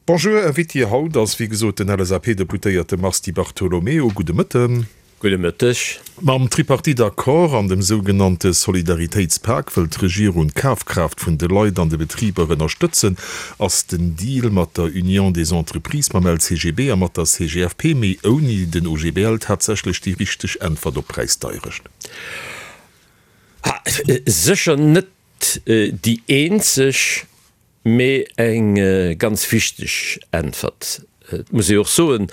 Bonjour, Invité haut ass wéi gesot den LSAP-Deputéierte Mars Di Bartolomeo. Gudde Mëtten. Gudde Mëtteg. Mam Tripartite-Accord an dem sougenannte Solidaritéitspak wëll d'Regierung d'Kafkraaft vun de Leit an de Betriber ënnerstëtzen. Ass den Deal mat der Union des Entreprises, mam LCGB a mat der CGFP, mee ouni den OGBL, tatsächlech déi richteg Äntwert op d'Präisdeierecht? Sécher net déi eenzeg. Mee eng ganz wichteg Äntwert. Et muss ee och soen,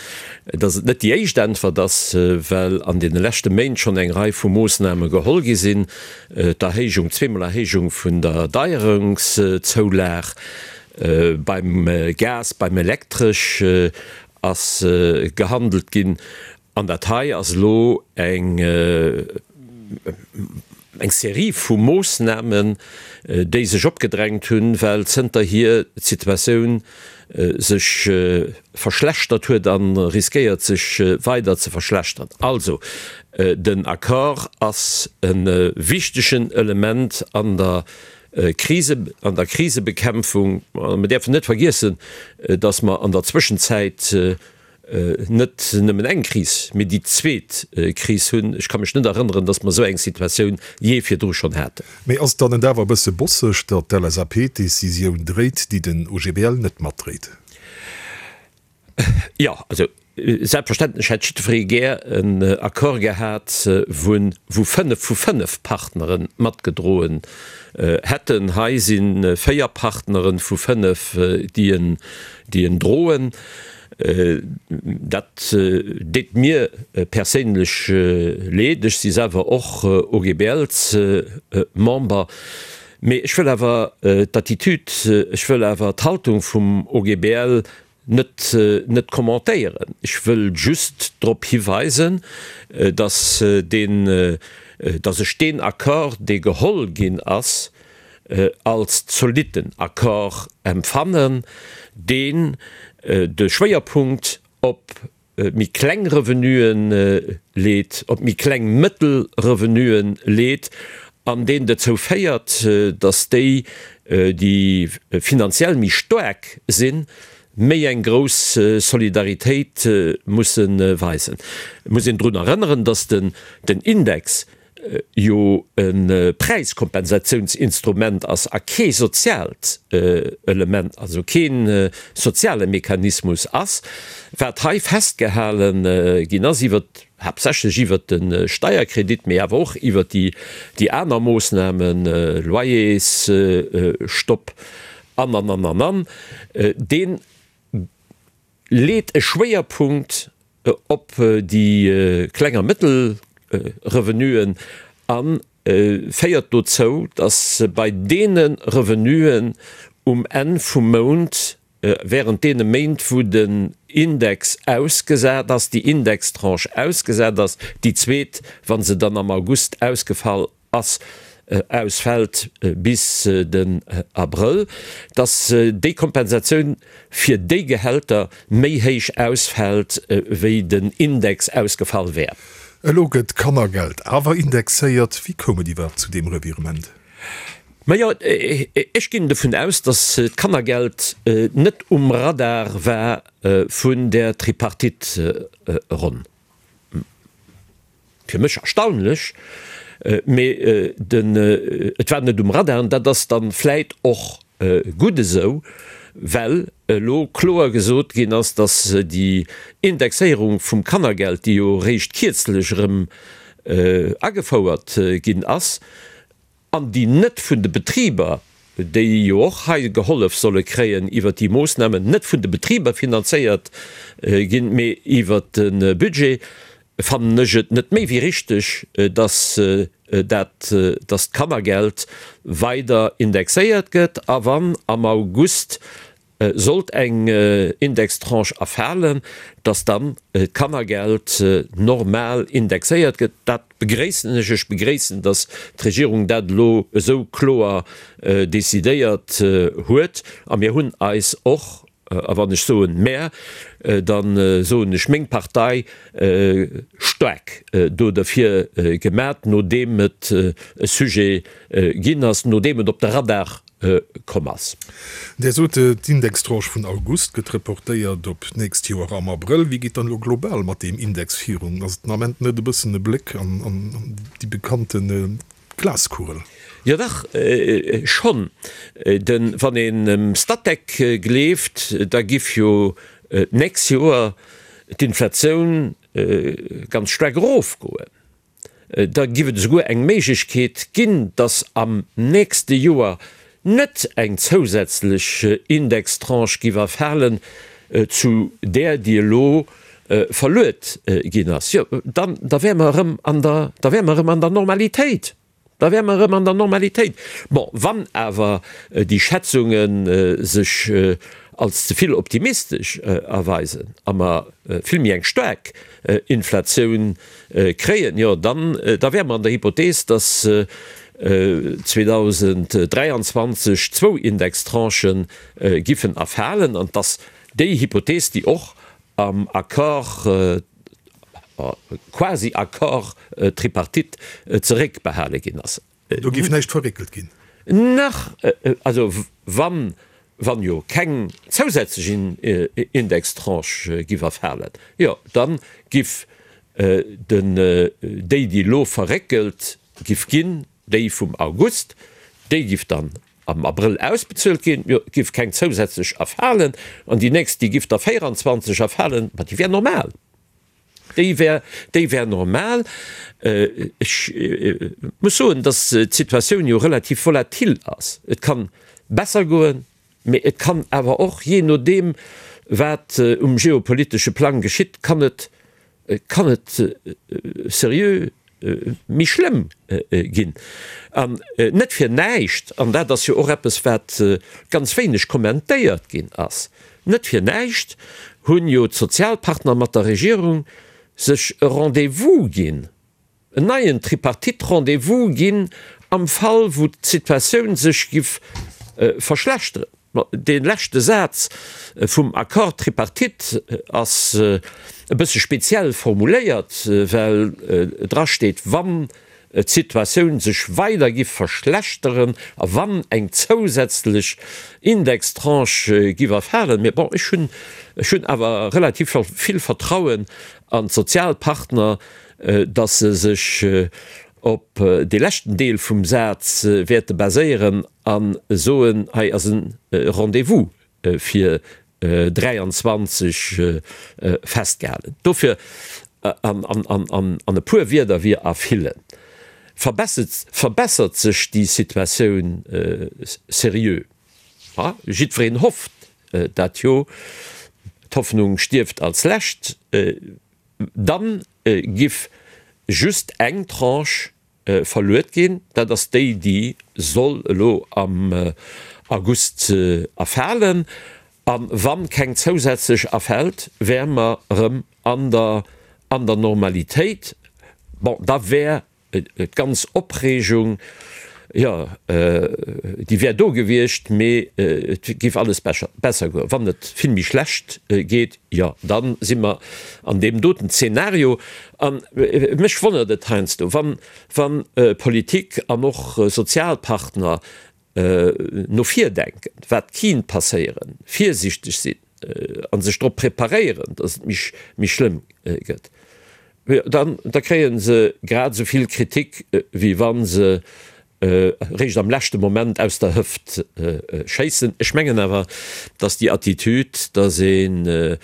datt et net déi éischt Äntwert ass, well an deene leschte Méint schonn eng Rei vu Moossname geholl gi sinn, d'Erhéijung, zweemol Erhéijung vun der Deierungszoulag beim Gas, beim Elektresch ass gehandelt ginn. An dat hei ass elo eng eng Serie vu Moossnamen, déi sech opgedrängt hunn, well zënterhier d'Situatioun sech verschlechtert huet a riskéiert sech weider ze verschlechtern. Also, den Accord ass e wichtegen Element an der Krise, an der Krisebekämpfung. A mir däerfen net vergiessen, dass mer an der Zwëschenzäit net nëmmen eng Kris, mee déi zweet Kris hunn. Ech ka mech net erënneren, datt mer esou eng Situatioun jee virdru schonn haten. Mee ass et dann net awer e bësse bosseg, datt d'LSAP d'Decisioun dréit, déi den OGBL net matdréit? Jo, also selbstverständlech hätt jiddweree gär en Accord gehat, wou 5 vu 5 Partnere matgedroen hätten. Hei si 4 Partnere vu 5, déi en droen. Dat deet mir perséinlech leed. Ech si selwer och OGBL-Member. Mee ech wëll awer d'Attitude, ech wëll awer d'Haltung vum OGBL net net commentéieren. Ech wëll just drop hiweisen, datt deen, datt ech deen Accord, dee geholl ginn ass, als zolitten Accord empfannen, deen de Schwéierpunkt op méi kleng Revenuen leet, op méi kleng mëttel Revenuen leet an deen dozou féiert, datt déi, déi finanziell méi staark sinn, méi eng grouss Solidaritéit musse weisen. Et muss een drun erënneren, datt den Index jo e Präiskompensatiounsinstrument ass a kee soziaalt Element, also kee soziale Mechanismus ass, wat hei festgehale ginn ass iwwert, haaptsächlech iwwert de Steierkredit, mee awer och iwwert déi aner Moossnamen, Loyersstopp an, an, an, an, an, dee leet e Schwéierpunkt op déi kleng a mëttel Revenuen a féiert dozou, datt bei deene Revenuen um Enn vum Mount, während deene Méint wou den Index ausgesat ass, déi Indextranche ausgesat ass, déi zweet, wa se dann am August ausgefall ass, ausfält bis den Abrëll, dass déi Kompensatioun fir déi Gehälter méi héich ausfält, wéi den Index ausgefall wär. Elo gëtt d'Kannergeld awer indexéiert. Wéi koum et iwwerhaapt zu deem Revirement? Majo, ech ginn dovun aus, dass d'Kannergeld net um Radar war vun där Tripartite-Ronn. Fir mech erstaunlech, mee den, et war net um Radar an dat ass dann vläit och gutt esou, well elo kloer gesot ginn ass, dass déi Indexéierung vum Kannergeld, déi jo eréischt kierzlech erëm agefouert ginn ass, an déi net vun de Betriber, déi jo och hei gehollef solle kréien iwwert déi Moossnamen, net vun de Betriber finanzéiert ginn, mee iwwert de Budget, fannen ech et net méi wéi richteg, dass dat, dass d'Kannergeld weider indexéiert gëtt a wann am August Sollt eng Indextranche erfalen, dass dann d'Kannergeld normal indexéiert gëtt, dat begréissen ech. Ech begréissen, dass d'Regierung dat elo esou kloer decidéiert huet. A mir hunn eis och, a wann ech soen mär, da soen ech meng Partei, staark do derfir gemat, nodeem et e Sujet ginn ass, nodeem et op de Radar. Komm ass. Där sot, d'Indextranche vun August gëtt reportéiert op d'nächst Joer am Abrëll. Wéi geet dann elo global mat deem Index virun? Ass et den Ament net e bëssen e Bléck an déi bekannte Glaskugel? Jo dach, schonn. Denn wann een dem Statec gleeft, da giff jo d'nächst Joer d'Inflatioun ganz staark erofgoen. Da giff et esouguer eng Méiglechkeet ginn, dass am nächste Joer net eng zousätzlech Indextranche giff erfalen zu där, déi elo verluet ginn ass. Jo, dann, da wäre mer erëm an der, da wäre mer erëm an der Normalitéit. Da wäre mer erëm an der Normalitéit. Bon, wann awer déi Schätzunge sech als ze vill optimistesch erweisen a mer vill méi eng staark Inflatioun kréien, jo dann, da wäre mer an der Hypothees, dass 2023 zwou Indextranchë giffen erfalen an dass déi Hypothees, déi och am Accord, quasi Accord tripartite zeréckbehale ginn ass. Do géif näischt verréckelt ginn? Nach, also wann, wann jo keng zousätzlech Indextranche giff erfalen, jo da giff den, déi déi elo verréckelt giff ginn, déi vum August, déi giff dann am Abrëll ausbezuelt ginn, jo et giff keng zousätzlech erfalen, an déi nächst déi giff da 24 erfalen, ma déi wär normal, déi wär, déi wär normal. Ech muss soen, datt d'Situatioun jo relativ volatil ass. Et kann besser goen, mee et kann awer och, jee nodeem wat um geopolitesche Plang geschitt, kann et kann et seriö méi schlëmm ginn. An net fir näischt, an dat ass jo och eppes, wat ganz wéineg kommentéiert ginn ass, net fir näischt hunn jo d'Sozialpartner mat der Regierung sech e Rendez-vous ginn, en neien Tripartite-Rendez-vous ginn am Fall wou d'Situatioun sech giff verschlechteren. Dee leschte Saz vum Accord tripartite ass e bësse speziell formuléiert, well dra steet, wann d'Situatioun sech weider giff verschlechteren a wann eng zousätzlech Indextranche giff erfalen. Mee bon, ech hunn, ech hunn awer relativ vill Vertrauen an d'Sozialpartner, datt se sech op dee leschten Deel vum Saz wäerte baséieren a soen, hei ass e Rendez-vous fir 23 festgehalen. Dofir, an e puer Wierder wier a villen, verbessert sech déi Situatioun seriö. Jiddwereen hofft dat jo, d'Hoffnung stierft als Lescht. Dann giff just eng Tranche verluet ginn, dat ass déi, déi soll elo am August erfalen. A wann keng zousätzlech erfält, wäre mer erëm an der an der Normalitéit. Bon, da wär D'ganz Opreegung, jo, déi wär do gewiescht, mee et géif alles besser goen. Wann et vill méi schlecht geet, jo, da si mer an deem doten Zeenario. A mech wonnert et heiansdo, wann Politik an och Sozialpartner no vir denken, wat kinnt passéieren, virsichteg sinn a sech drop preparéieren, datt et méi schlëmm gëtt, dann da kréie se grad esou vill Kritik, wéi wa se eréischt am leschte Moment aus der Hëft schéissen. Ech mengen awer, datt déi Attitüd, datt een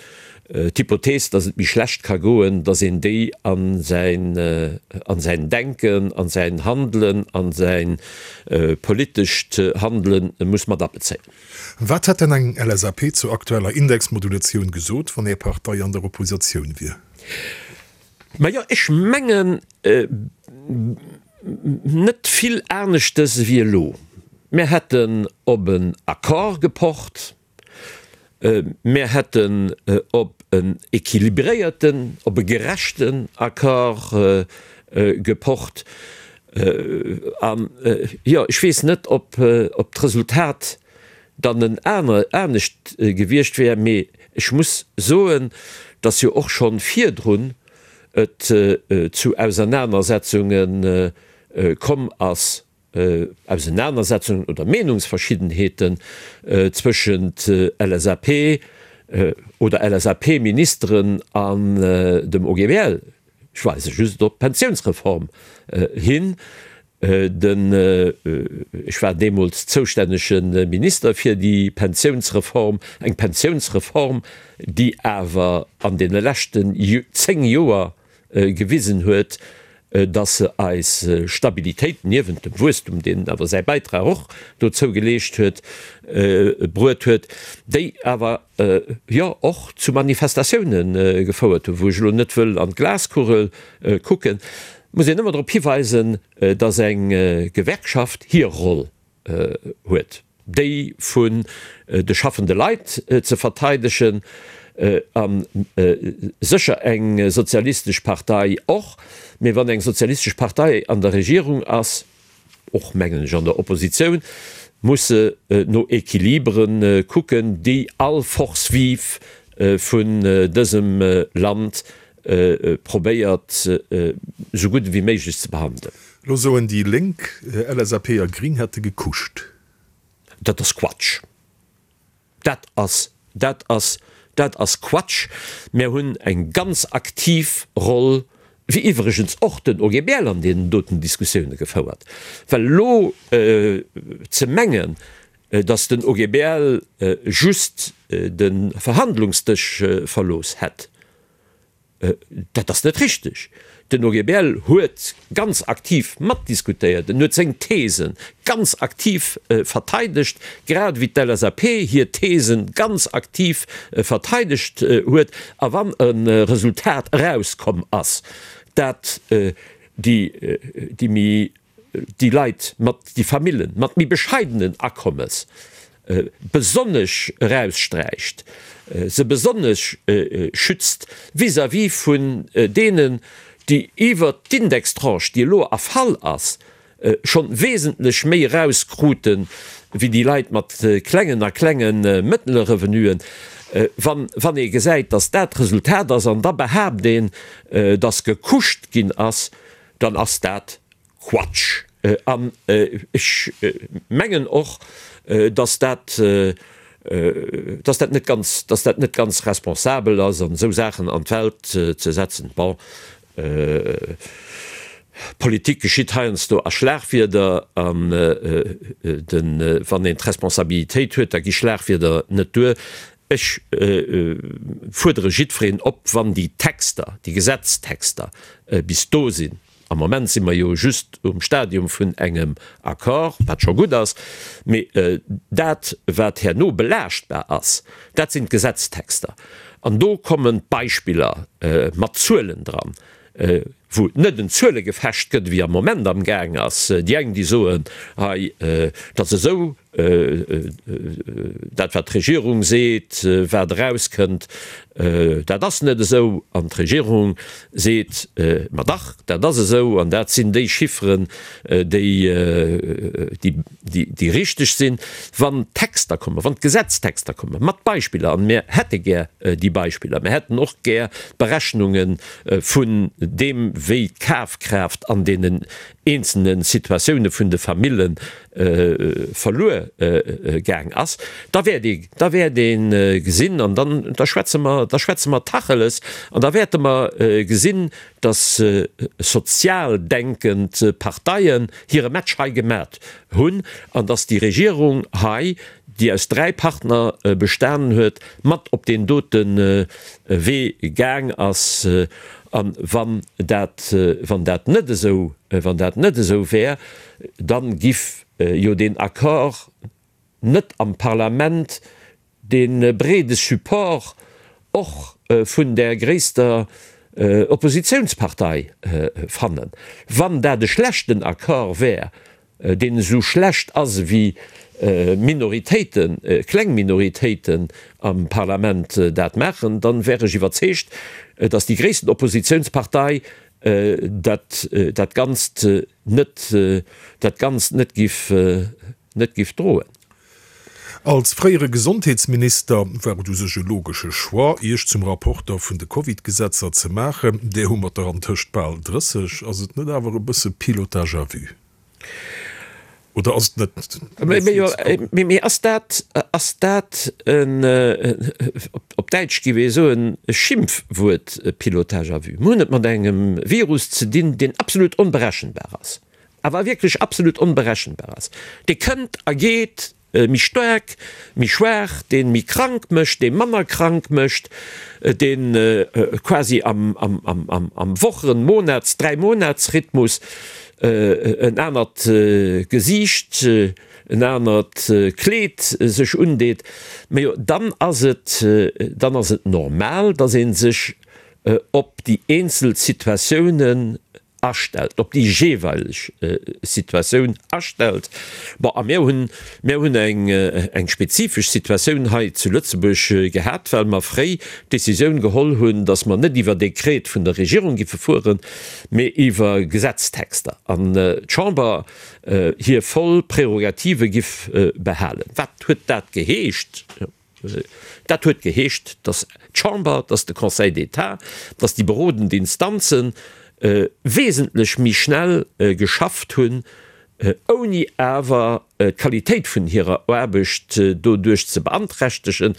D'Hypothees, datt et méi schlecht ka goen, datt een déi a säin, a säin Denken, a säin Handelen, a säi politescht Handele muss mat abezéien. Wat hätt denn eng LSAP zur aktueller Indexmodulatioun gesot, wann Är Partei an der Oppositioun wier? Majo, ech mengen net vill aneschtes ewéi elo. Mär hätten op en Accord gepocht. Mär hätten op en équilibréierten, op e gerechten Accord gepocht. An, jo, ech weess net, ob d'Resultat dann en anescht gewiescht wär, mee ech muss soen, dass jo och scho virdrun et zu Ausernanersetzunge komm ass. Ausenanersetzungen oder Meenungsverschiddenheeten zwëschent LSAP oder LSAP-Ministeren an dem OGBL. Ech weise just op d'Pensiounsreform hin. Den, ech war deemools zoustännege Minister fir déi Pensiounsreform, eng Pensiounsreform, déi awer an deene leschten 10 Joer gewisen huet, dass se eis Stabilitéit, niewent dem Wuesstum, deen awer säi Bäitrag och dozou geleescht huet, bruet huet, déi awer jo och zu Manifestatioune gefouert hunn, wou ech elo net wëll an d'Glaskugel kucken, muss een ëmmer drop hiweisen, dass eng Gewerkschaft hir Roll huet, déi vun de schaffende Leit ze verteidegen, a sécher eng sozialistesch Partei och, mee wann eng sozialistesch Partei an der Regierung ass, och mengen ech an der Oppositioun, muss se no Equilibere kucken, déi all Force vive vun dësem Land probéiert esou gutt ewéi méiglech ze behandelen. Lo soen déi Lénk, LSAP a Gring hätte gekuscht. Dat ass Quatsch. Dat ass, dat ass, dat ass Quatsch. Mär hunn eng ganz aktiv Roll, wéi iwwregens och den OGBL an deenen doten Diskussioune gefouert. Well elo ze mengen, datt den OGBL just de Verhandlungsdësch verlooss hätt, Dat ass net richteg. Den OGBL huet ganz aktiv matdiskutéiert, en huet seng These ganz aktiv verteidegt, grad ewéi d'LSAP hir These ganz aktiv verteidegt huet. A wann e Resultat erauskomm ass, dat déi méi déi Leit mat, déi Famillen mat méi bescheidenen Akommes besonnesch eraussträicht, se besonnesch schützt vis-à-vis vun deenen, déi iwwert d'Indextranche, déi elo erfall ass, schonn wesentlech méi erauskrute wéi déi Leit mat klengen a klenge mëttlere Revenuen. Wann, wann ee gesäit, dass dat d'Resultat ass an da behaapt een, dass gekuscht ginn ass, dann ass dat Quatsch. An ech mengen och, dass dat, dass dat net ganz, dass dat net ganz responsabel ass, an esou Saachen an d'Welt ze setzen. Bon, Politik geschitt heiansdo a Schlagwierder, an de, wann een d'Responsabilitéit huet, da gi Schlagwierder net duer. Ech fuerdere jiddwereen op, wann déi Texter, déi Gesetztexter bis do sinn, am Moment si mer jo just um Stadium vun engem Accord, wat scho gutt ass, mee dat, wat herno belaaschtbar ass, dat sinn d'Gesetztexter. An do kommen d'Beispiller mat Zuelen dran, wou et net en Zuelegefecht gëtt, wéi am Moment amgaang ass. Déi eng, déi soen, hei, dat ass esou, dat wat d'Regierung seet, wat erauskënnt, dat ass net esou, an d'Regierung seet, ma dach, dat ass esou an dat sinn déi Chifferen, déi déi richteg sinn. Wann d'Texter kommen, wann d'Gesetztexter kommen, mat Beispiller, an mir hätte gär déi Beispiller, mir hätten och gär d'Berechnunge vun deem, wéi d'Kafkraaft an deenen eenzelne Situatioune vun de Famille verluer gaang ass, da wäert ee, da wäert ee gesinn, an dann, da schwätze mer, da schwätze mer Tacheles, an da wäerte mer gesinn, datt sozial denkend Parteien hire Match hei gemat hunn an datt déi Regierung hei, déi aus 3 Partner bestanen huet, mat op deen dote Wee gaang ass. A wann dat, wann dat net esou, wann dat net esou wär, da giff jo deen Accord net am Parlament dee breede Support och vun där gréisster Oppositionspartei fannen. Wann dat e schlechten Accord wär, deen esou schlecht ass ewéi Minoritéiten, kleng Minoritéiten am Parlament dat maachen, dann wär ech iwwerzeegt, datt déi gréissten Oppositionspartei dat dat Ganzt net, dat Ganzt net giff, net giff droen. Als fréiere Gesondheetsminister war et u sech e logesche Choix, Iech zum Rapporter vun de Covid-Gesetzer ze maachen. Där hu mer der antëscht bal 30. Ass et net awer e bësse Pilotage à vue? Oder ass et net méi ze kucken? Mee ass dat, ass dat en, op Däitsch géif ee soen, e Schimpfwuert, Pilotage à vue? Mir hunn et mat engem Virus ze dinn, deen absolut onberechenbar ass, awer wierklech absolut onberechenbar ass. Dee kënnt a geet méi staark, méi schwaach, dee méi krank mécht, dee manner krank mécht, dee quasi am Wochen-, Monats-, Dräimonatsrhythmus en anert Gesiicht, en anert Kleed sech undeet. Majo, dann ass et, dann ass et normal, datt ee sech op déi eenzel Situatiounen astellt, op déi jeeweileg Situatioun astellt. Bon, a mir hunn, mir hunn eng, eng spezifesch Situatioun hei zu Lëtzebuerg gehat, well mer fréi d'Décisioun geholl hunn, dass mer net iwwer Dekret vun der Regierung giffe fueren, mee iwwer Gesetztexter, an d'Chamber hir voll Prerogative giff behalen. Wat huet dat geheescht? Dat huet geheescht, datt d'Chamber, datt de Conseil d'État, datt déi berodend Instanze wesentlech méi schnell geschafft hunn, ouni awer d'Qualitéit vun hirer Aarbecht doduerch ze beanträchtegen,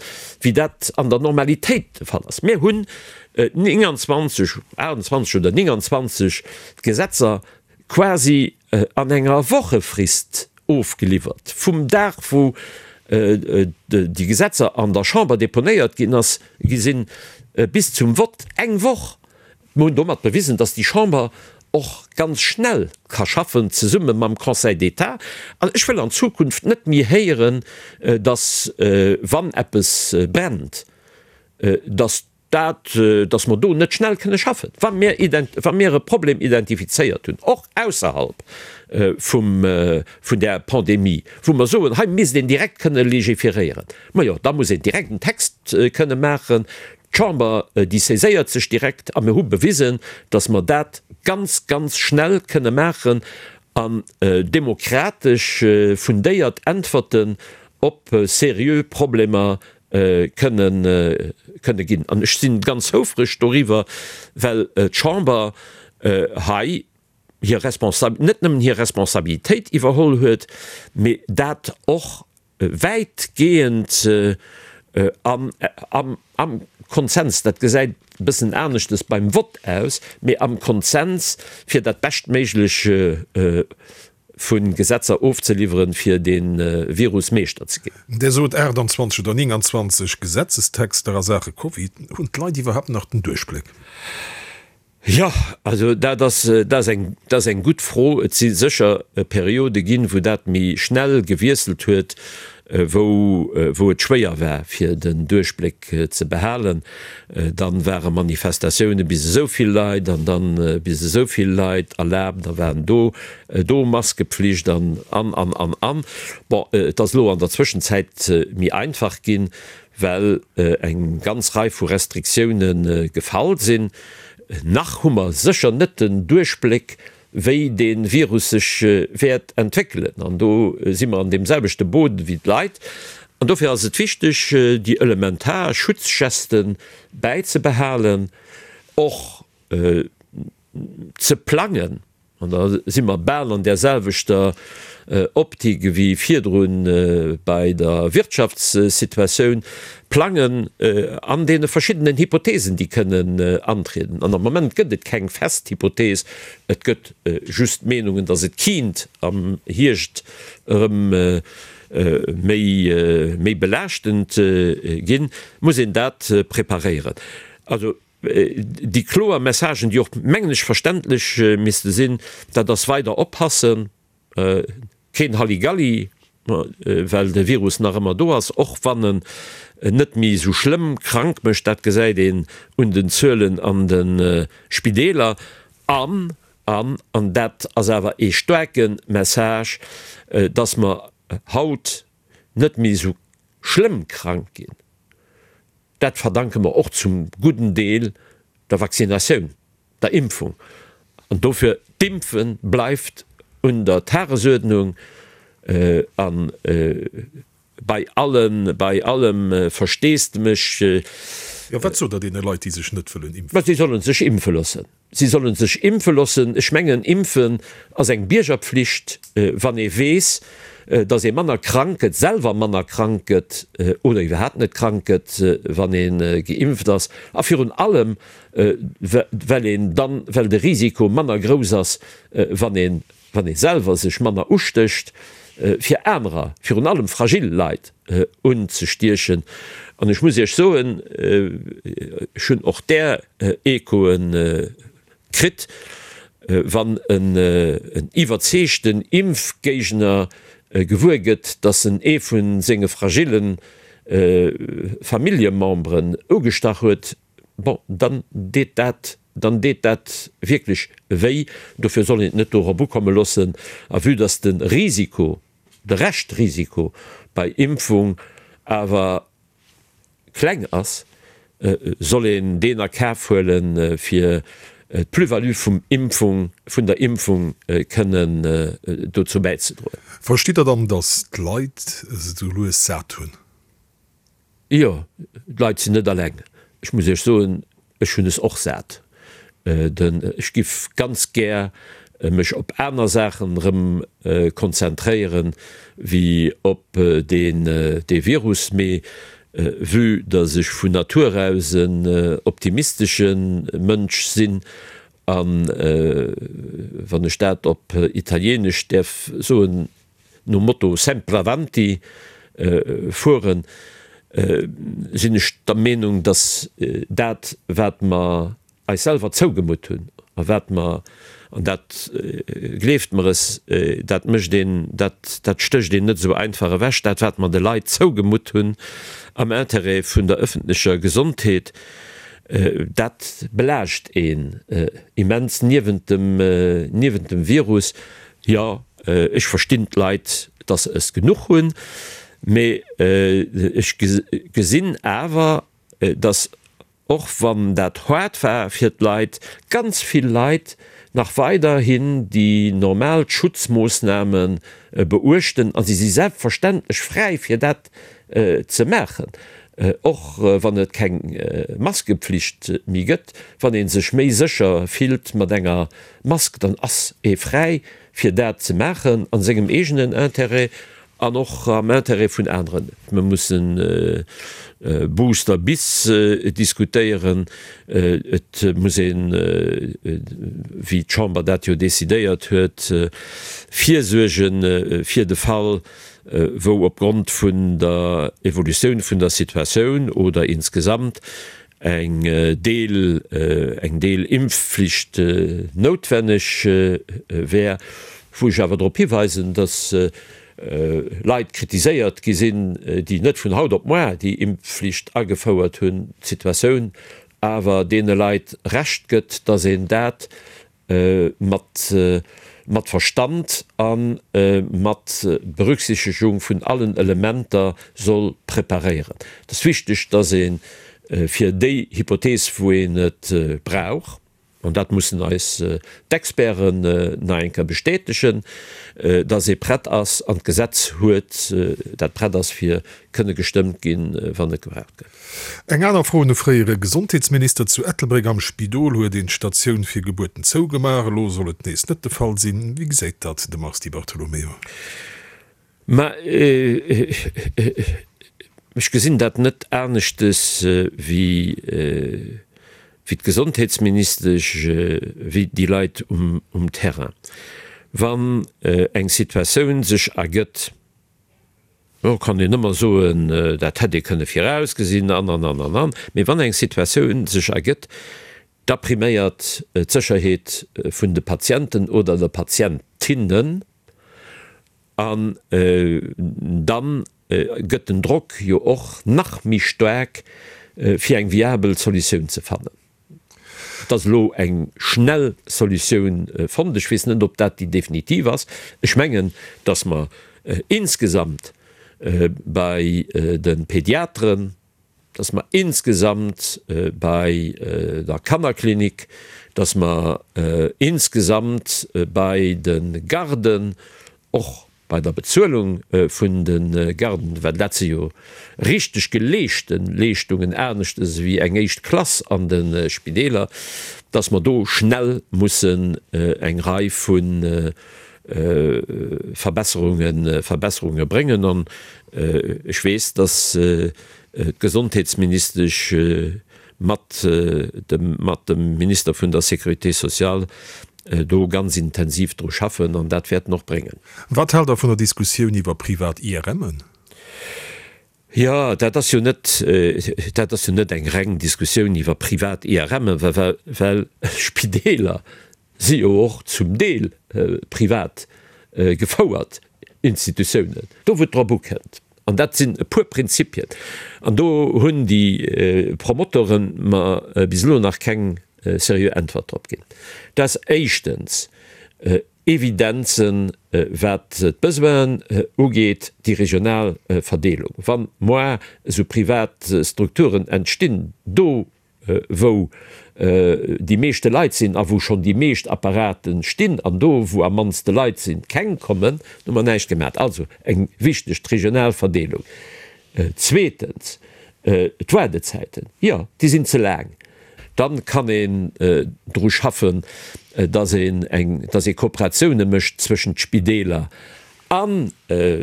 wéi dat an der Normalitéit de Fall ass. Mir hunn 29, 28 oder 29 Gesetzer quasi an enger Wochefrist ofgeliwwert. Vum Dag wou déi Gesetzer an der Chamber deponéiert ginn ass, gi sinn, bis zum Vott eng Woch. Mir hunn domat bewisen, datt déi Chamber och ganz schnell ka schaffen, zesumme mam Conseil d'État. An ech wëll an Zukunft net méi héieren, datt wann eppes brennt, datt dat, dass mer do net schnell kënne schaffen, wa mir, wa mir e Problem identifizéiert hunn, och ausserhalb vum, vun där Pandemie, wou mer soen, hei misst een direkt kënne légiféréieren, majo, da muss een direkt en Text kënne maachen. D'Chamber, déi saiséiert sech direkt a mir hu bewisen, dass mer dat ganz, ganz schnell kënne maachen an demokratesch fundéiert Äntwerten op seriö Problemer kënnen kënne ginn. An ech si ganz houfreg doriwwer, well d'Chamber hei hir Responsa-, net nëmmen hir Responsabilitéit iwwerholl huet, mee dat och wäitgehend am am Konsens, dat gesäit e bëssen aneschtes beim Vott aus, mee am Konsens, fir dat Beschtméiglech vu Gesetzer ofzeliwweren, fir dee Virus Meeschter ze ginn. Dir sot 28 oder 29 Gesetzestexter a Saache Covid. Hunn d'Leit iwwerhaapt nach den Duerchbléck? Jo, also dat ass, dat ass eng, dat ass eng gutt Fro. Et si sécher Periode ginn, wou dat méi schnell gewiesselt huet, wou, wou et schwéier war, fir den Duerchbléck ze behalen. Dann ware Manifestatioune bis esou vill Leit an dann bis esou vill Leit erlaabt, da waren do do Maskepflicht an, an, an, an, an. Bon, et ass elo an der Zwëschenzäit méi einfach ginn, well eng ganz Rei vu Restriktioune gefall sinn. Nach hu mer sécher net den Duerchbléck, wéi dee Virus sech wäert entwéckelen. An do si mer an deem selwechte Boot wéi d'Leit. An dofir ass et wichteg, déi elementar Schutzgesten bäizebehalen, och ze plangen. An da si mer bal an där selwechter Optik ewéi virdru bei der Wirtschaftssituatioun, plangen an deene verschiddenen Hypothesen, déi kënnen antrieden. An am Moment gëtt et keng fest Hypothese, et gëtt just Meenungen, datt et kiint am Hierscht erëm méi, méi belaaschtend ginn, muss een dat preparéieren. Also déi kloer Messagen, déi och, mengen ech, verständlech misste sinn, dat ass weider oppassen, Keen Halligalli, well de Virus nach ëmmer do ass, och wann en net méi esou schlëmm krank mécht. Dat gesäit een un den Zuelen an de Spideeler. An, an, an dat ass awer ee staarke Message, dass mer haut net méi esou schlëmm krank ginn, dat verdanke mer och zum gudden Deel der Vaccinatioun. der Impfung. An dofir, d'Impfe bleift un der Tagesuerdnung a bei allem, bei allem Versteesdemech. Jo, wat sot Der deene Leit, déi sech net wëllen impfen? Ma si solle sech impfe loossen. Si solle sech impfe loossen. Ech mengen, impfen ass eng Biergerpflicht, wann ee weess, datt ee manner krank gëtt, selwer manner krank gëtt oder iwwerhaapt net krank gëtt, wann ee geimpft ass. A virun allem, well een dann, well de Risiko manner grouss ass, wann een wann ee selwer sech manner ustécht, fir anerer, virun allem fragil Leit, unzestiechen. An ech muss Iech soen, ech hunn och där Echoe kritt, wann en iwwerzeegten Impfgéigner gewuer gëtt, datt en ee vu senge fragille Familljememberen ugestach huet, Bon, dann deet dat, dann deet dat wierklech wéi. Dofir soll een et net dorop ukomme loossen. A vue dass de Risiko, de Reschtrisiko bei Impfung awer kleng ass, soll een deen a Kaf huelen, fir d'Plus-value vum Impfung, vun der Impfung kënnen dozou bäizedroen. Verstitt Der dann, dass d'Leit se esou lues sat hunn? Jo, d'Leit sinn net alleng. Ech muss Iech soen, ech hunn es och sat. Ech giff ganz gär mech op aner Saachen erëm konzentréieren, wéi op dee Virus. Mee vue dass ech vun Natur aus en optimistesche Mënsch sinn, a wann ech dat op Italienesch däerf soen, nom Motto sempre avanti fueren, sinn ech der Meenung, dass dat, wat mer eis selwer zougemutt hunn a wat mer, an dat, gleeft mer es, dat mécht een, dat, dat stécht een net esou einfach ewech, dat, wat mer de Leit zougemutt hunn am Intérêt vun der öffentlecher Gesondheet, dat belaascht een immens niewent dem, niewent dem Virus. Jo, ech verstinn d'Leit, dass se es genuch hunn, mee ech gesinn awer, dass, och wann dat haart war fir d'Leit, ganz vill Leit nach weiderhin déi normal Schutzmoossname beuechten. A si si selbstverständlech fräi fir dat ze maachen, och wann et keng Maskepflicht méi gëtt. Wann ee sech méi sécher fillt mat enger Mask, dann ass ee fräi fir dat ze maachen a sengem eegenen Intérêt an och am Intérêt vun aneren. Mir mussen Booster bis diskutéieren. Et muss een, wéi d'Chamber dat jo decidéiert huet, virsuerge fir de Fall, wou opgrond vun der Evolutioun vun der Situatioun oder insgesamt eng Deel, eng Deelimpfflicht noutwenneg wär, wou ech awer drop hiweisen, dass Leit kritiséiert gi sinn, déi net vun haut op moar déi Impfflicht agefouert hunn, d'Situatioun awer deene Leit Recht gëtt, dass een dat mat mat Verstand a mat Berücksichtegung vun allen Elementer soll preparéieren. Et ass wichteg, dass ee fir déi Hypothees, wou een et brauch, an dat mussen eis d'Experten nach eng Kéier bestätegen, dass ee prett ass an d'Gesetz huet, dat prett ass fir kënne gestëmmt ginn, wann et gebraucht gëtt. Eng aner Fro un e fréiere Gesondheetsminister, Zu Ettelbréck am Spidol huet een d'Statioun fir Gebuerten zougemaach. Elo soll et nees net de Fall sinn. Wéi gesäit dat de Mars Di Bartolomeo? Mä ech gesinn dat net aneschtes wéi d'Gesondheetsministesch, wéi déi Leit um Terrain. Wann eng Situatioun sech ergëtt, Lo kann een ëmmer soen, dat hätt ee kënne virausgesinn an, an, an, an, an. Mee wann eng Situatioun sech ergëtt, da priméiert d'Sécherheet vun de Patienten oder der Patientinnen an da gëtt den Drock jo och nach méi staark, fir eng viabel Solutioun ze fannen. Et ass elo eng schnell Solutioun fonnt. Ech weess net, ob dat déi definitiv ass. Ech mengen, dass mer insgesamt bei de Pediateren, dass mer insgesamt bei der Kannerklinik, dass mer insgesamt bei de Garden och. bei der Bezuelung vun de Garden, well dat si jo richteg geleeschte Leeschtungen, aneschters ewéi eng éischt Klass an de Spideeler, dass mer do schnell mussen eng Rei vu Verbesserunge Verbesserunge bréngen. An ech weess, dass d'Gesondheetsministesch mat dem mat dem Minister vun der Sécurité sociale do ganz intensiv dru schaffen an dat wäerten och bréngen. Wat haalt Der vun der Diskussioun iwwer privat IRMen? Jo, dat ass jo net, dat ass jo net eng reng Diskussioun iwwer privat IRMen, well well Spideeler si jo och zum Deel privat gefouert Institutiounen. Do wou et drop ukënnt, an dat sinn e puer Prinzipien, an do hunn déi Promotoren mer bis elo nach keng seriö Äntwert drop ginn, dat ass éischtens Evidenzen, wat d'Besoinen ugeet, déi regional Verdeelung. Wa moar esou privat Strukturen entstinn, do wou déi meeschte Leit sinn a wou schonn déi meescht Apparate stinn an do wou am mannste Leit sinn, keng kommen, hu mer näischt gemat. Also eng wichteg, d'regional Verdeelung. Zweetens, d'Waardezäiten, jo, déi sinn ze laang. Dann kann een dru schaffen, dass een eng, dass ee Kooperatioune mécht zwëschent Spideeler an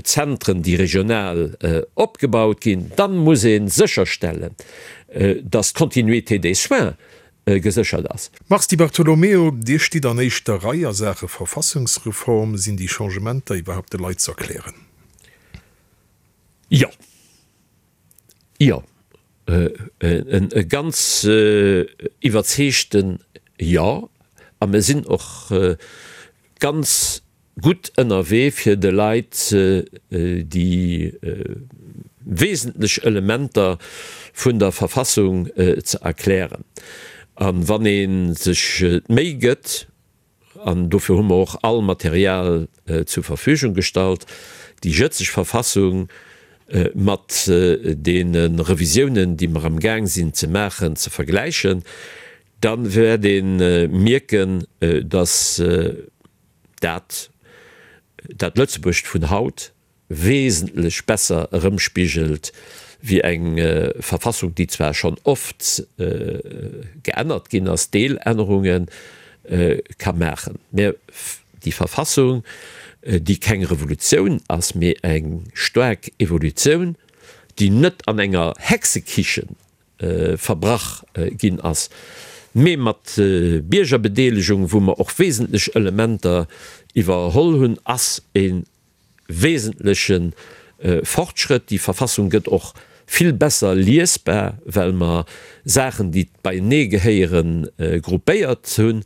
Zentren, déi regional opgebaut ginn. Dann muss ee sécherstellen, dass d'Continuité des soins geséchert ass. Mars Di Bartolomeo, Dir stitt an éischter Rei a Saache Verfassungsreform. Sinn déi Changementer iwwerhaupt de Leit z'erklären? Jo. Jo. E ganz iwwerzeegten Jo. A mir sinn och ganz gutt ënnerwee fir de Leit déi wesentlech Elementer vun der Verfassung ze erklären. A wann ee sech d'Méi gëtt, an dofir hu mer och all Material zur Verfügung gestallt, déi jëtzeg Verfassung mat deene Revisiounen, déi mer am Gaang sinn ze maachen, ze vergläichen, Da wäert ee mierken, datt dat dat Lëtzebuerg vun haut wesentlech besser erëmspigelt wéi eng Verfassung, déi zwar schonn oft geännert ginn ass, Deelännerunge ka maachen, mä déi Verfassung, déi keng Revolutioun ass, mee eng staark Evolutioun, déi net an enger Hexekichen verbrach ginn ass, mee mat Biergerbedeelegung, wou mer och wesentlech Elementer iwwerholl hunn, ass e wesentleche Fortschrëtt. Déi Verfassung gëtt och vill besser liesbar, well mer Saachen, déi beienee gehéieren, gruppéiert hunn.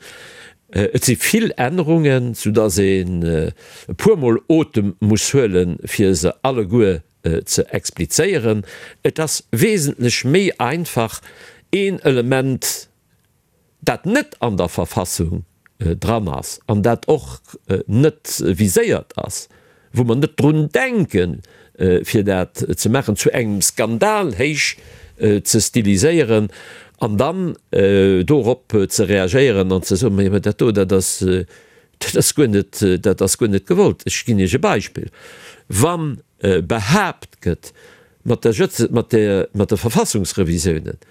Et si vill Ännerungen, soudass een e puermol Otem muss huelen, fir se alleguer ze explizéieren. Et ass wesentlech méi einfach, een Element, dat net an der Verfassung dran ass an dat och net viséiert ass, wou mer net drun denken, fir dat ze maachen, zu engem Skandal héich ze stiliséieren an dann dorop ze reagéieren an ze soen, Mä dat do, dat ass, dat ass guer net, dat ass guer net gewollt. Ech ginn Iech e Beispill, Wann behaapt gëtt, mat der Jëtze, mat der, mat de Verfassungsrevisiounen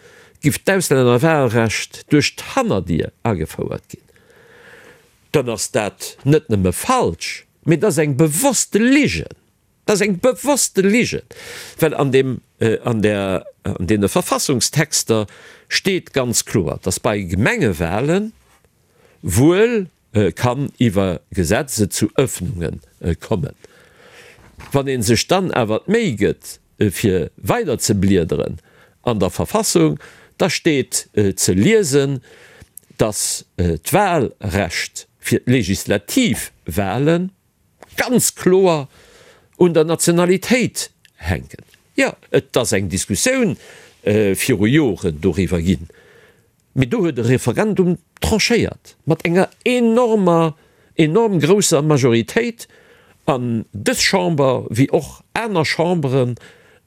giff d'Auslännerwahlrecht duerch d'Hannerdier agefouert ginn, dann ass dat net nëmme falsch, mee dat ass eng bewosste Ligen. Dat ass eng bewosste Ligen, well an deem, an der, an deene Verfassungstexter steet ganz kloer, dass bei Gemengewahlen wuel kann iwwer Gesetz et zu Öffnunge kommen. Wann ee sech dann awer d'Méi gëtt, fir weider ze bliederen an der Verfassung, da steet ze liesen, dass d'Wahlrecht fir d'legislativ Wahlen ganz kloer un der Nationalitéit hänken. Jo, et ass eng Diskussioun viru Joren doriwwer ginn. Mee do huet e Referendum tranchéiert, mat enger enormer, enorm grousser Majoritéit. An dës Chamber, wéi och aner Chambere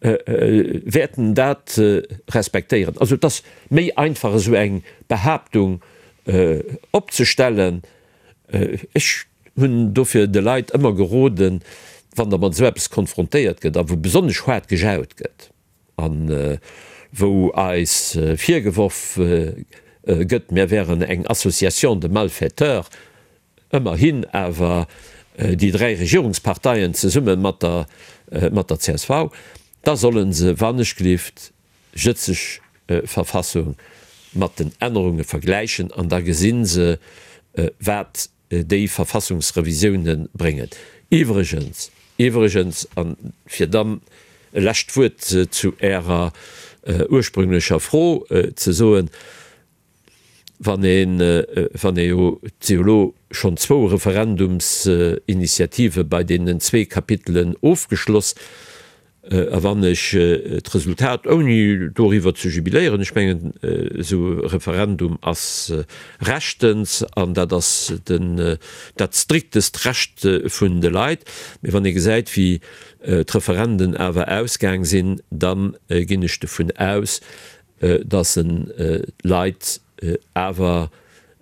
wäerten dat respektéieren. Also et ass méi einfach, esou eng Behaaptung opzestellen. Ech hunn dofir de Leit ëmmer geroden. Wann der mat esou eppes konfrontéiert gëtt a wou besonnesch haart gejaut gëtt a wou eis virgeworf gëtt, mir wären eng Association de malfaiteurs, ëmmerhin awer déi 3 Regierungsparteien zesumme mat der mat der csv, da solle se wannechgelift jëtzeg Verfassung mat den Ännerunge vergläichen an da gesi se, wat déi Verfassungsrevisioune bréngen. Iwwregens, iwwregens, a fir dann e lescht Wuert zu Ärer ursprünglecher Fro ze soen, wann een, wann ee jo, et si jo elo schonn zwou Referendumsinitiative bei deenen zwee Kapitelen ofgeschloss, A wann ech d'Resultat, ouni doriwwer ze jubiléieren, ech mengen, esou e Referendum ass rechtens an dat ass den, dat striktest Recht vun de Leit, mee wann ee gesäit, wéi d'Referenden awer ausgaang sinn, da ginn ech dovun aus, dass en d'Leit awer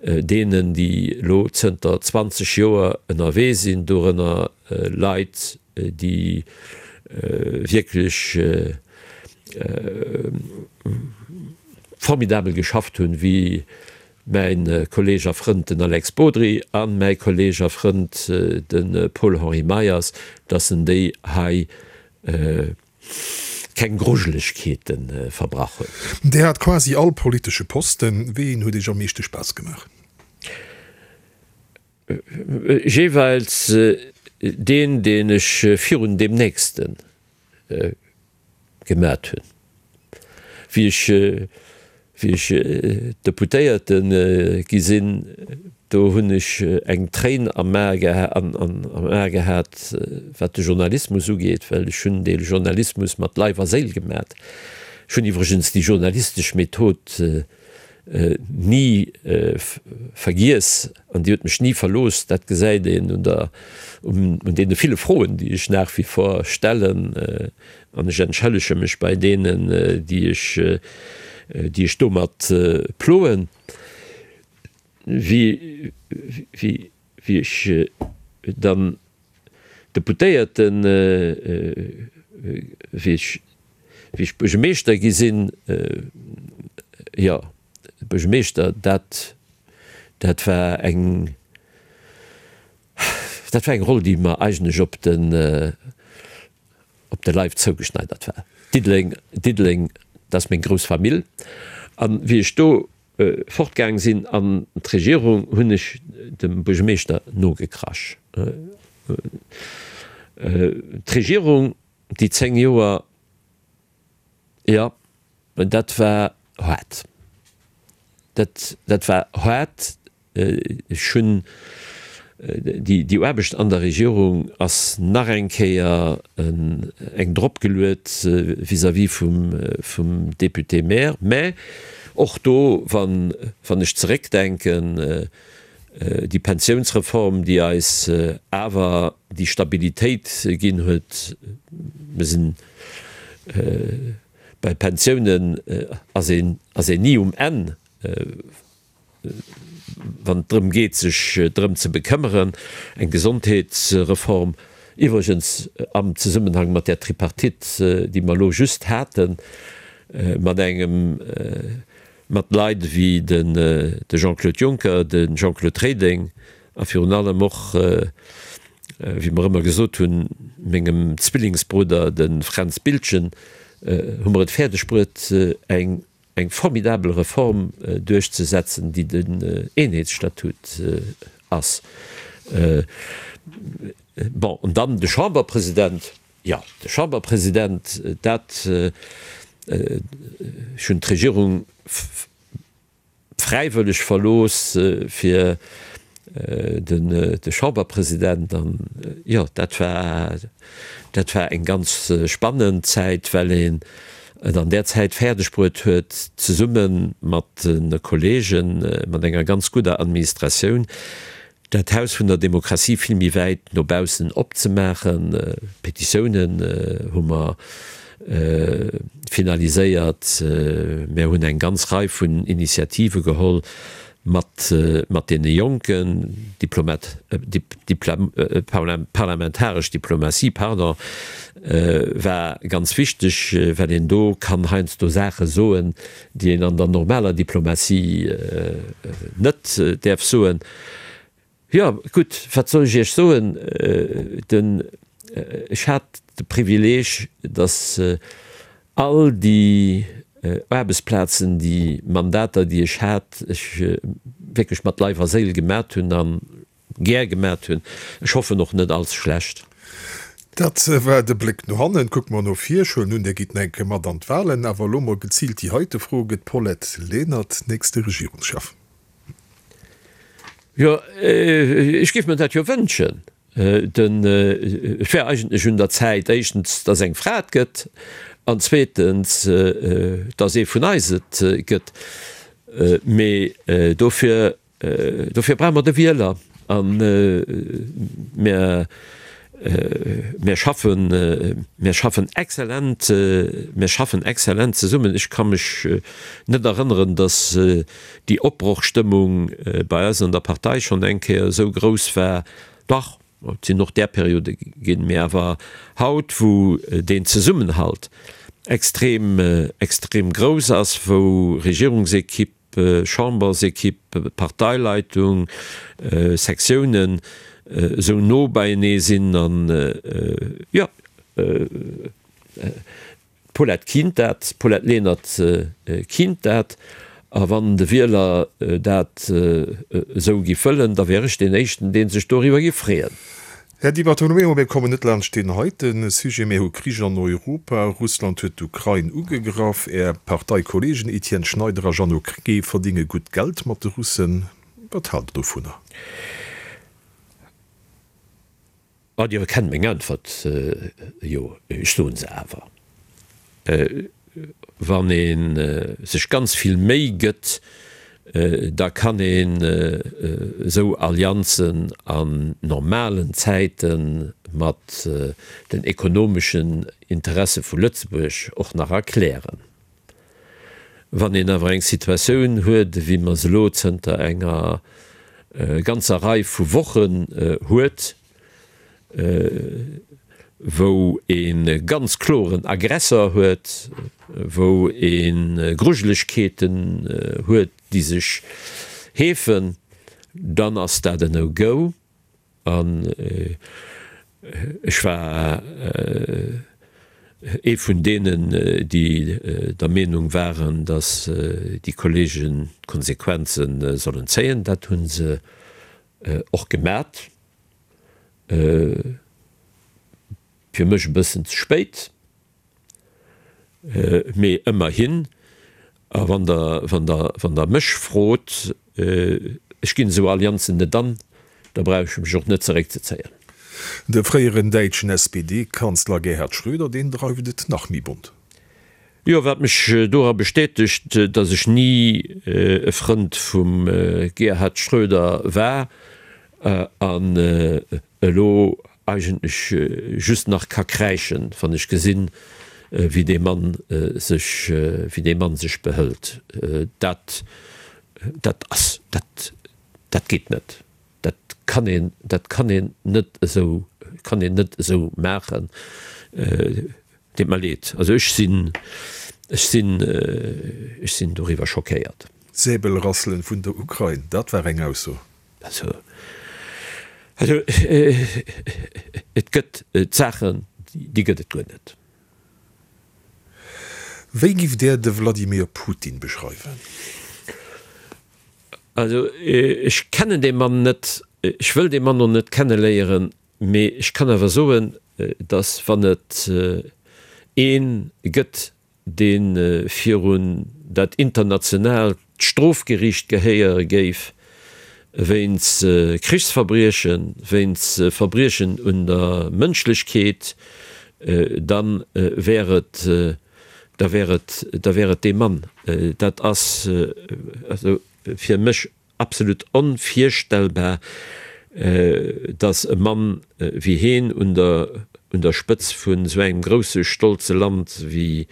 deenen, déi elo zënter 20 Joer ënnerwee sinn, dorënner Leit, déi wierklech formidabel geschafft hunn, wéi mäi Kolleeg a Frënd den Alex Bodry a mäi Kolleeg a Frënd de Paul-Henri Meyers, dass en déi hei keng Grujelegkeete verbrach huet. Dir hat quasi all politesche Posten. Wéi een huet Iech am meeschte Spaass gemaach? Jeeweils deen, deen ech virun deem nächste gemat hunn. Wéi ech, wéi ech Deputéierte gi sinn, do hunn ech eng Tréin am A am A gehat, wat de Journalismus ugeet, well ech hunn dee Journalismus mat Leif a Séil gemat. Ech hunn iwwregens déi journalistesch Method ni vergiess an déi huet mech ni verlooss. Dat gesäit een un der, un deene ville Froen, déi ech nach wie vor stellen. An ech entschëllege mech bei deenen, déi ech, déi ech domat ploen. Wéi, wéi, wéi ech dann Deputéierten, wéi ech, wéi ech Buergermeeschter gi sinn, jo, Buergermeeschter, dat, dat war eng, dat war eng Roll, déi mer eigentlech op den, op de Leif zougeschneidert war. Diddeleng, Diddeleng, dat ass meng grouss Famill. An wéi ech do fortgaang sinn an d'Regierung, hunn ech dem Buergermeeschter nogekrasch. D'Regierung, déi 10 Joer, jo, dat war haart. Dat, dat war haart. Ech hunn déi Aarbecht an der Regierung ass nach eng Kéier eng dropgeluet vis-à-vis vum Député-maire. Mä och do, wann ech zeréckdenken, déi Pensiounsreform, déi eis awer déi Stabilitéit ginn huet, mir sinn bei Pensiounen ass een ni um Enn, wann et drëm geet, sech drëm ze bekëmmeren, eng Gesondheetsreform, iwwregens am Zesummenhang mat där Tripartite, déi mer elo just haten, mat engem, mat Leit ewéi de Jean-Claude Juncker, de Jean-Claude Reding a virun allem och, wéi mer ëmmer gesot hunn, mengem Zwillingsbrudder, de Fränz Biltgen, hu mer et fäerdeg bruet, eng eng formidabel Reform duerchzesetzen, déi den Eenheetsstatut ass. Bon, an dann de Chamberpresident, jo, de Chamberpresident, dat, ech hunn d'Regierung fräiwëlleg verlooss fir de Chamberpresident an jo, dat war, dat war eng ganz spannend Zäit, well een et an där Zäit fäerdeg bruet huet, zesumme mat de Kollegen, mat enger ganz gudder Administratioun, dat Haus vun der Demokratie vill méi wäit no baussen opzemaachen. Petitiounen hu mer finaliséiert. Mär hunn eng ganz Rei vun Initiative geholl. Mat, mat deene Jonken, Diplomat, Dipla, parlamentaresch Diplomatie, pardon, war ganz wichteg, well een do kann heiansdo Saache soen, déi een an der normaler Diplomatie net däerf soen. Jo, gutt, wat soll ech Iech soen? Den, ech hat de Privileeg, datt all déi Aarbechtsplazen, déi Mandater, déi ech hat, ech wierklech mat Leif a Séil gemat hunn a gär gemat hunn. Ech hoffen och net allze schlecht. Dat war de Bléck no hannen. Kucke mer no vir. Ech huelen un, Dir gitt nach eng Kéier mat an d'Wahlen. Awer elo mol geziilt déi heite Fro, Gëtt d'Paulette Lenert nächste Regierungschef? Jo, ech géif mer dat jo wënschen. Den, et wär eigentlech un der Zäit, éischtens, datt eng Fra et gëtt, an zweetens, datt ee vun eis et gëtt. Mee dofir, dofir brauche mer de Wieler. A mir, mir schaffen, mir schaffen exzellent, mir schaffen exzellent zesummen. Ech ka mech net erënneren, datt déi Opbrochstëmmung bei eis an der Partei schonn eng Kéier esou grouss war. Dach, et sinn och där Periode ginn, mee awer haut, wou deen Zesummenhalt extrem, extrem grouss ass, wou Regierungsekipp, Chambersekipp, Parteileitung, Sektiounen esou no beienee sinn an, jo, D'Paulette kinnt dat, d'Paulette Lenert kinnt dat. A wann de Wieler dat esou giff wëllen, da wär ech deen Éischten, dee sech doriwwer giff freeën. Här Di Bartolomeo, mir kommen net laanscht deen heite Sujet. Mir hu Krich an Europa, Russland huet d'Ukrain ugegraff. Är Parteikollegen Etienne Schneider a Jeannot Krecké verdinge gutt Geld mat de Russen. Wat haalt Der dovunner? Ah, Dir kennt meng Äntwert jo, ech soen se awer. Wann ee sech ganz vill Méi gëtt, da kann een esou Allianzen an normalen Zäite mat den ekonomeschen Interesse vu Lëtzebuerg och nach erklären. Wann een awer eng Situatioun huet, ewéi mer se elo zënter enger ganzer Rei vu Wochen huet, wou ee ganz kloren Aggressor huet, wou ee Grujelegkeeten huet, déi sech heefen, dann ass dat en No-Go. An ech war ee vun deenen, déi der Meenung waren, datt déi Kollegen d'Konsequenze sollen zéien. Dat hu se och gemat. Fir mech e bëssen ze spéit. Mee ëmmerhin, a wann Der, wann Der, wann Der mech frot, ech ginn esou Allianzen net an, da brauch ech mech och net zeréckzezéien. De fréieren däitschen SPD-Kanzler Gerhard Schröder, deen dreift et nach méi bont. Jo, wat mech dora bestätegt, datt ech ni e Frënd vum Gerhard Schröder war an elo eigentlech just nach ka kräischen, wann ech gesinn, wéi dee Mann sech, wéi dee Mann sech behëlt. Dat, dat ass, dat, dat geet net. Dat kann een, dat kann een net esou, kann een net esou maachen. Deet mer leed. Also ech sinn, ech sinn, ech sinn doriwwer schockéiert. Säbelrasselen vun der Ukrain, dat war eng Ausso. Also, also et gëtt Saachen, déi gëtt et guer net. Wéi giff Där de Vladimir Putin beschreiwen? Also ech kennen dee Mann net, ech wëll dee Mann och net kenneléieren, mee ech kann awer soen, datt wann et ee gëtt, dee virun dat internationaalt Strofgeriicht gehéiere géif wéinst Krichsverbriechen, wéinst Verbriechen un der Mënschlechkeet, da wär et, da wär et, da wär et dee Mann. Dat ass also fir mech Absolut onvirstellbar, dass e Mann wéi heen un der un der Spëtz vun esou engem grousse stolze Land wéi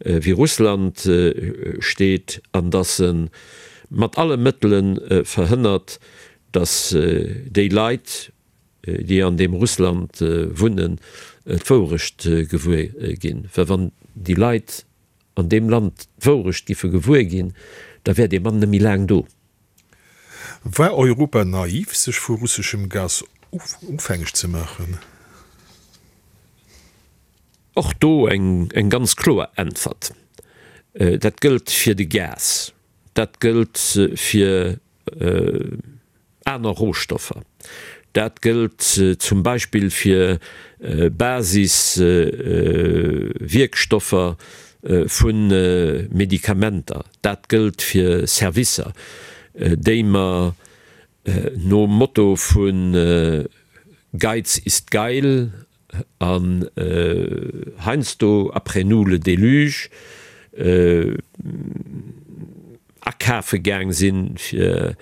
wéi Russland steet an dass e. mat alle Mëttele verhënnert, datt déi Leit, déi an deem Russland wunnen, d'Wourecht gewuer ginn. Well wann déi Leit an deem Land d'Wourecht giffe gewuer ginn, da wär dee Mann net méi laang do. War Europa naiv, sech vu russeschem Gas ofhängeg ze maachen? Och do eng ganz kloer Äntwert, Dat gëllt fir de Gas, dat gëllt fir aner Rohstoffer, dat gëllt zum Beispill fir Basiswierkstoffer vu Medikamenter, dat gëllt fir Servicer, déi mer nom Motto vu Geiz ist geil An heiansdo, après nous le déluge, akafe gaang sinn fir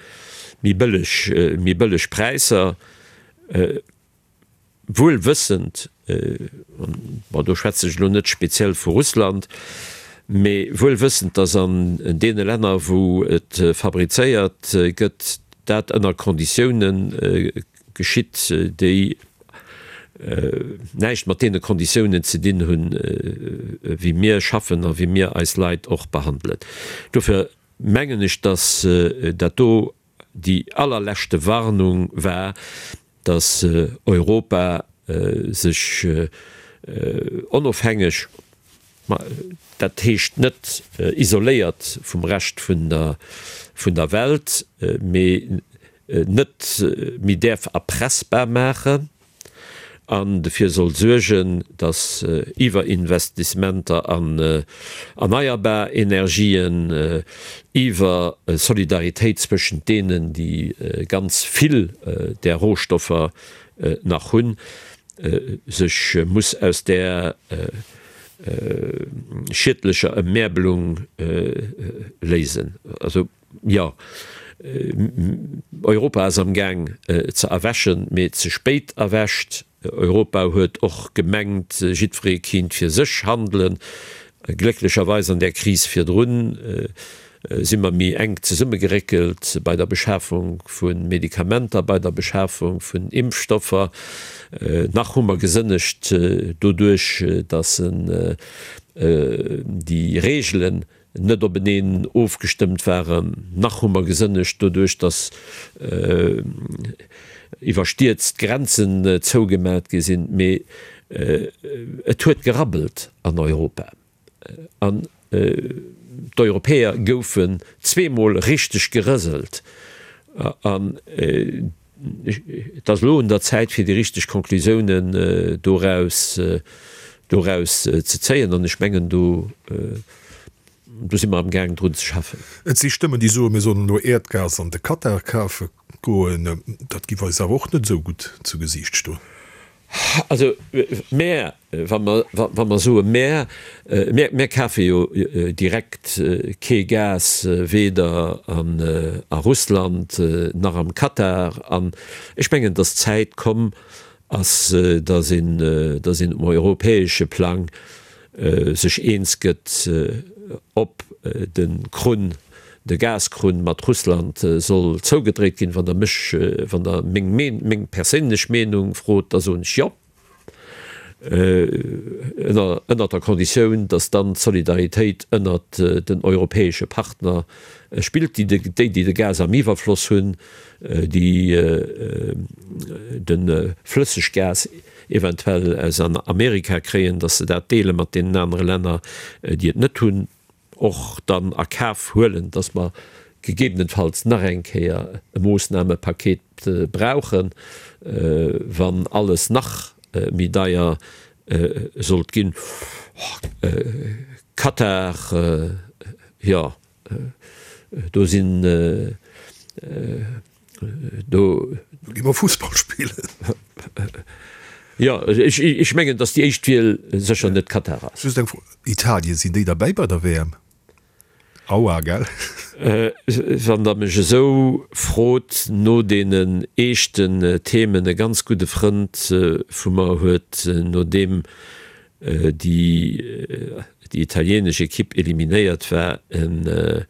méi bëlleg, méi bëlleg Präisser, wuel wëssend, bon do schwätze ech elo net speziell vu Russland, mee wuel wëssend, datt an deene Länner wou et fabrizéiert gëtt, dat ënner Konditiounen geschitt, déi näischt mat deene Konditiounen ze dinn hunn, wéi mir schaffen a wéi mir eis Leit och behandelen. Dofir mengen ech, dass dat do déi allerleschte Warnung war, dass Europa sech onofhängeg, ma dat heescht net isoléiert vum Rescht vun der Welt, mee net méi däerf erpressbar maachen an dofir soll suergen, datt Iwwerinvestissementer an erneierbar Energien, iwwer Solidaritéit zwëschent deenen, déi ganz vill där Rohstoffer nach hunn, sech muss aus där schiedlecher Emmärbelung léisen. Jo, Europa ass am Gaang ze erwächen, mee ze spéit erwächt. Europa huet och gemengt, jiddweree kinnt fir sech handelen. Glécklecherweis an där Kris virdrun si mer méi enk zesummegeréckelt bei der Beschafung vu Medikamenter, bei der Beschafung vun Impfstoffer. Nach hu mer gesënnegt doduerch, datt déi Reegelen net openeen ofgestëmmt waren. Nach hu mer gesënnegt doduerch, datt iwwerstierzt d'Grenzen zougemat gi sinn. Mee et huet gerabbelt an Europa an d'Europäer goufen zweemol richteg gerëselt. An Et ass elo un der Zäit, fir déi richteg Konklusiounen doraus, doraus ze zéien. An ech mengen, do, do si mer amgaang drun ze schaffen. Et si Stëmmen, déi soen, mir sollen elo Äerdgas an de Katar kafe goen. Dat giff eis awer och net esou gutt zu Gesiicht stoen. Also mär, wa mer, wa mer soe mär, mär, mär kafe jo direkt kee Gas, weder an a Russland nach am Katar. An ech mengen, datt d'Zäit komm ass, datt een, datt een um europäesche Plang sech eens gëtt, ob de Krunn, de Gaskrunn mat Russland soll zougedréit ginn. Wann Der mech, wann Der meng meng perséinlech Meenung frot, da soen ech jo, ënner ënnert der Konditioun, datt dann d'Solidaritéit ënnert den europäesche Partner spillt, déi déi déi de Gas am Iwwerfloss hunn, déi de Flësseggas eventuell aus Amerika kréien, datt se dat deele mat deenen anere Länner, déi et net hunn, och dann a Kaf huelen, datt mer gegebenenfalls nach eng Kéier e Moossnamepaket brauchen, wann alles nach méi deier sollt ginn. Katar, jo, do sinn Do. Do gi mer Fussball spillen. Jo, ech mengen, datt déi éischt Wiel sécher net Katar ass. Just eng Fro, Italien, sinn déi derbäi bei der WM? Aua, gell? Wann Der mech esou frot no deenen eeschten Themen, e ganz gudde Frënd vu mer huet, nodeem déi italienesch Ekipp eliminéiert war, en.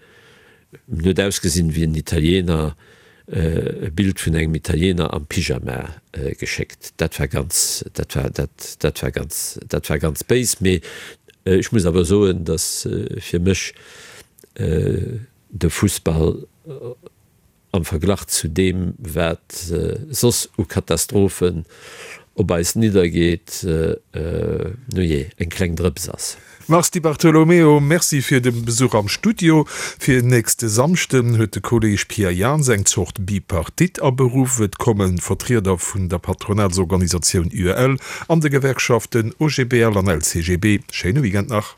En huet ausgesinn wéi en Italiener, e Bild vun engem Italiener am Pyjama geschéckt. Dat war ganz, dat war, dat, dat war ganz, dat war ganz béis. Mee ech muss awer soen, datt fir mech de Fussball am Verglach zu deem, wat soss u Katastrophen op eis niddergeet, nujee, eng kleng Drëps ass. Mars Di Bartolomeo, Merci fir de Besuch am Studio. Fir nächste Samschden huet de Kolleeg Pierre Jans eng Zort Bipartite aberuff. Et komme Vertrieder vun der Patronatsorganisatioun UEL an de Gewerkschaften OGBL an LCGB. Schéine Weekend nach.